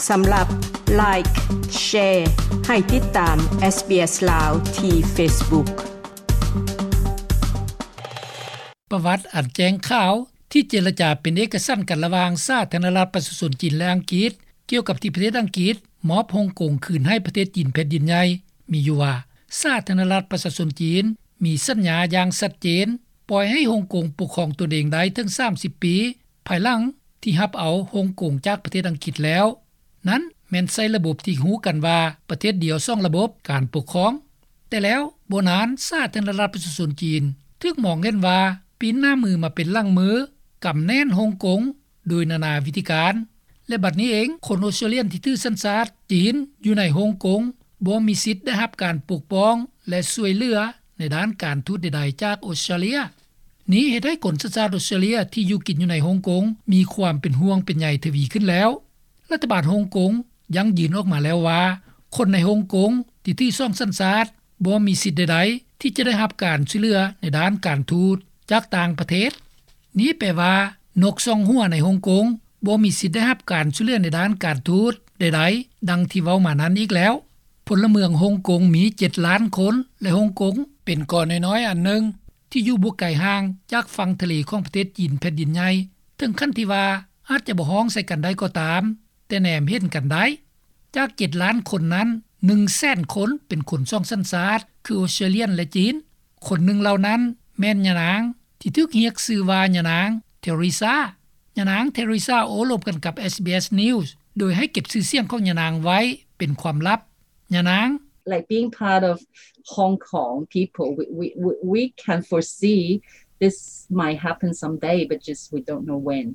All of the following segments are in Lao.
ສຳລັບ Like, Share ໃຫ້ຕິດຕາມ SBS ລາວ ທີ່ Facebook. ປະຫວັດອັນແຈ້ງຂາວທີ່ເຈລະຈາເປັນເອກະສັນກັນລະຫວ່າງສາທາລະນະລັດປະຊາຊົນຈີນ ແລະ ອັງກິດ ກ່ຽວກັບທີ່ປະເທດອັງກິດມອບຮົງກົງຄືນໃຫ້ປະເທດຈີນແຜ່ນດິນໃຫຍ່ ມີຢູ່ວ່າ ສາທາລະນະລັດປະຊາຊົນຈີນມີສັນຍາຢ່າງຊັດເຈນ ປ່ອຍໃຫ້ຮົງກົງປົກຄອງຕົນເອງໄດ້ເຖິງສາມສິບປີ ພາຍຫຼັງທີ່ຮັບເອົາຮົງກົງຈາກປະເທດອັງກິດແລ້ວ. ນັ້ນແມ່ນໃຊ້ລະບົບທີ່ຮູ້ກັນວ່າ ປະເທດດຽວສອງລະບົບການປົກຄອງ. ແຕ່ແລ້ວບໍ່ນານ ສາທາລະນະລັດປະຊາຊົນຈີນຖືກມອງເຫັນວ່າປີ້ນໜ້າມືມາເປັນຫຼັງມື ກຳແໜ້ນຮົງກົງໂດຍນານາວິທີການ ແລະ ບັດນີ້ເອງ ຄົນອອສເຕຣເລຍນທີ່ຖືສັນຊາດຈີນຢູ່ໃນຮົງກົງ ບໍ່ມີສິດໄດ້ຮັບການປົກປ້ອງ ແລະ ຊ່ວຍເຫຼືອໃນດ້ານການທູດໃດໆຈາກອອສເຕຣເລຍ. ນີ້ເຮັດໃຫ້ຄົນສັນຊາດອອສເຕຣເລຍທີ່ຢູ່ກິນຢູ່ໃນຮົງກົງ ມີຄວາມເປັນຫ່ວງເປັນໃຍທະວີຂຶ້ນແລ້ວ. ລັດຖະບານຮົງກົງຢັ້ງຢືນອອກມາແລ້ວວ່າ ຄົນໃນຮົງກົງທີ່ຖືສອງສັນຊາດ ບໍ່ມີສິດໃດໆທີ່ຈະໄດ້ຮັບການຊ່ວຍເຫຼືອໃນດ້ານການທູດຈາກຕ່າງປະເທດ. ນີ້ແປວ່າ ນົກສອງຫົວໃນຮົງກົງ ບໍ່ມີສິດໄດ້ຮັບການຊ່ວຍເຫຼືອໃນດ້ານການທູດໃດໆ ດັ່ງທີ່ເວົ້າມານັ້ນອີກແລ້ວ. ພົນລະເມືອງຮົງກົງມີເຈັດລ້ານຄົນ ແລະ ຮົງກົງເປັນເກາະນ້ອຍໆອັນໜຶ່ງ ທີ່ຢູ່ບໍ່ໄກຫ່າງຈາກຝັ່ງທະເລຂອງປະເທດຈີນແຜ່ນດິນໃຫຍ່ ເຖິງຂັ້ນທີ່ວ່າອາດຈະບໍ່ຮ້ອງໃສ່ກັນໄດ້ກໍຕາມ ແຕ່ແນມເຫັນກັນໄດ້. ຈາກເຈັດລ້ານຄົນນັ້ນ ໜຶ່ງແສນຄົນເປັນຄົນສອງສັນຊາດ ຄືອອສເຕຣເລຍນ ແລະ ຈີນ. ຄົນໜຶ່ງເຫຼົ່ານັ້ນແມ່ນຍານາງທີ່ຖືກຮຽກຊື່ວ່າຍານາງເທເຣຊາ. ຍານາງເທເຣຊາໂອ້ລົມກັນກັບ SBS News ໂດຍໃຫ້ເກັບຊື່ສຽງຂອງຍານາງໄວ້ເປັນຄວາມລັບ. ຍານາງ Like being part of Hong Kong people, we, we, we, we can foresee this might happen someday, but just we don't know when.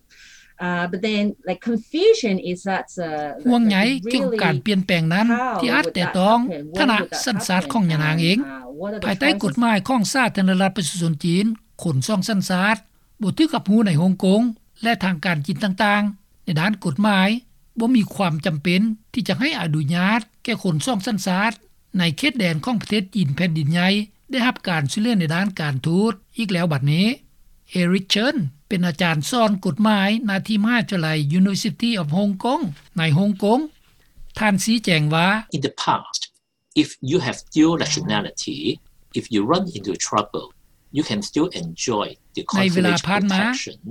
Uh, but then, like, confusion is that, uh, ຫ່ວງໃຍກ່ຽວກັບການປ່ຽນແປງນັ້ນ ທີ່ອາດແຕະຕ້ອງຖານະສັນຊາດຂອງຍານາງເອງ. ພາຍໃຕ້ກົດໝາຍຂອງສາທາລະນະລັດປະຊາຊົນຈີນ ຄົນສອງສັນຊາດບໍ່ຖືກຮັບຮູ້ໃນຮົງກົງ ແລະ ທາງການຈີນຕ່າງໆ ໃນດ້ານກົດໝາຍ ບໍ່ມີຄວາມຈຳເປັນທີ່ຈະໃຫ້ອະນຸຍາດແກ່ຄົນສອງສັນຊາດ ໃນເຂດແດນຂອງປະເທດຈີນແຜ່ນດິນໃຫຍ່ ໄດ້ຮັບການຊ່ວຍເຫຼືອໃນດ້ານການທູດອີກແລ້ວບັດນີ້. ເອຣິກ ເຊີນ ເປັນອາຈານສອນກົດໝາຍ ນາທີ່ມະຫາວິທະຍາໄລ University of Hong Kong ໃນຮົງກົງ. ທ່ານຊີ້ແຈງວ່າ In the past, if you have dual nationality, if you run into trouble, you can still enjoy the consulate protection. ໃນເວລາຜ່ານມາ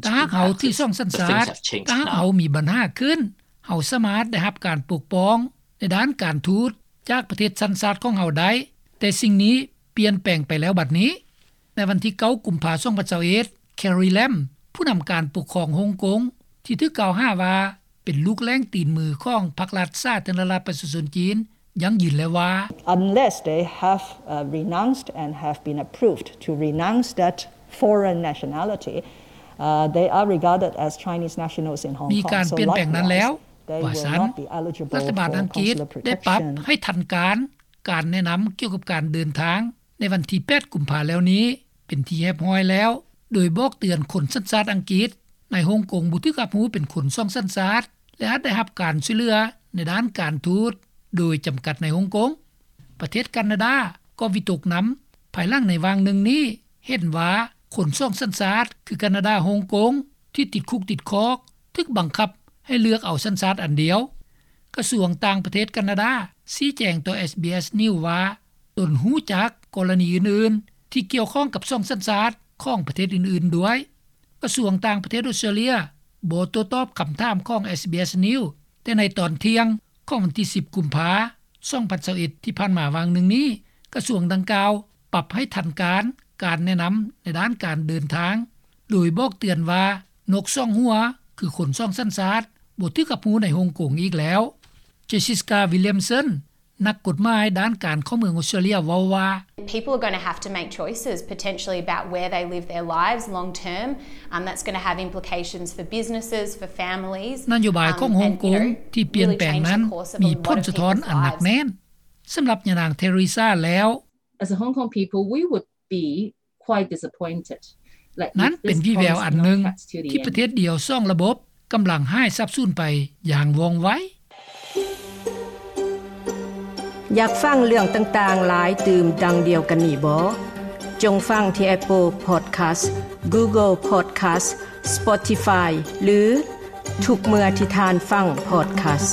ຖ້າຫາກເຮົາຖືສອງສັນຊາດ ຖ້າຫາກເຮົາມີບັນຫາຂຶ້ນ ເຮົາສາມາດໄດ້ຮັບການປົກປ້ອງໃນດ້ານການທູດຈາກປະເທດສັນຊາດຂອງເຮົາໄດ້, ແຕ່ສິ່ງນີ້ປ່ຽນແປງໄປແລ້ວບັດນີ້. ໃນວັນທີເກົ້າ ກຸມພາ ສອງພັນຊາວເອັດ ແຄຣີ ແລມ ຜູ້ນຳການປົກຄອງຮົງກົງ ທີ່ຖືກກ່າວຫາວ່າເປັນລູກແລ້ງຕີນມືຂອງພັກລັດສາທາລະນະລັດປະຊາຊົນຈີນ ຢັ້ງຢືນແລ້ວວ່າ Unless they have, uh, renounced and have been approved to renounce that foreign nationality, uh, they are regarded as Chinese nationals in Hong Kong. ມີການປ່ຽນແປງນັ້ນແລ້ວ ວ່າຊັ້ນ. ລັດຖະບານອັງກິດໄດ້ປັບໃຫ້ທັນການ ການແນະນຳກ່ຽວກັບການເດີນທາງ ໃນວັນທີແປດ ກຸມພາ ແລ້ວນີ້ເປັນທີ່ຮຽບຮ້ອຍແລ້ວ, ໂດຍບອກເຕືອນຄົນສັນຊາດອັງກິດໃນຮົງກົງບໍ່ຖືກຮັບຮູ້ເປັນຄົນສອງສັນຊາດ ແລະ ອາດໄດ້ຮັບການຊ່ວຍເຫຼືອໃນດ້ານການທູດໂດຍຈຳກັດໃນຮົງກົງ. ປະເທດການາດາກໍວິຕົກນຳ ພາຍຫຼັງໃນຫວ່າງໜຶ່ງນີ້ເຫັນວ່າຄົນສອງສັນຊາດ ຄືການາດາ, ຮົງກົງ ທີ່ຕິດຄຸກຕິດຄອກ ຖືກບັງຄັບໃຫ້ເລືອກເອົາສັນຊາດອັນດຽວ. ກະຊວງຕ່າງປະເທດການາດາຊີ້ແຈງຕໍ່ SBS News ວ່າ ຕົນຮູ້ຈັກກໍລະນີອື່ນໆທີ່ກ່ຽວຂ້ອງກັບສອງສັນຊາດຂອງປະເທດອື່ນໆດ້ວຍ. ກະຊວງຕ່າງປະເທດອອສເຕຣເລຍບໍ່ໂຕ້ຕອບຄຳຖາມຂອງ SBS News, ແຕ່ໃນຕອນທ່ຽງຂອງວັນທີສິບ ກຸມພາ ສອງພັນຊາວເອັດ ທີ່ຜ່ານມາຫວ່າງໜຶ່ງນີ້ ກະຊວງດັ່ງກ່າວປັບໃຫ້ທັນການ ການແນະນຳໃນດ້ານການເດີນທາງ ໂດຍບອກເຕືອນວ່າ ນົກສອງຫົວ ຄືຄົນສອງສັນຊາດ ບໍ່ຖືກຮັບຮູ້ໃນຮົງກົງອີກແລ້ວ. ເຈສຊິກາ ວິລຽມສັນ ນັກກົດໝາຍດ້ານການເຂົ້າເມືອງອອສເຕຣເລຍເວົ້າວ່າ People are gonna have to make choices potentially about where they live their lives long term. Um, that's gonna have implications for businesses, for families. ນະໂຍບາຍຂອງຮົງກົງທີ່ປ່ຽນແປງນັ້ນ ມີຜົນສະທ້ອນອັນໜັກແໜ້ນ. ສຳລັບຍານາງເທເຣຊາແລ້ວ As a Hong Kong people, we would be quite disappointed. ນັ້ນເປັນວີແວວອັນໜຶ່ງທີ່ປະເທດດຽວສອງລະບົບກຳລັງຫາຍສາບສູນໄປຢ່າງວ່ອງໄວ. ຢາກຟັງເລື່ອງຕ່າງໆຫຼາຍຕື່ມດັ່ງດຽວກັນນີ້ບໍ? ຈົ່ງຟັງທີ່ Apple Podcast, Google Podcast, Spotify ຫຼື ທຸກເມື່ອທີ່ທ່ານຟັງ podcast.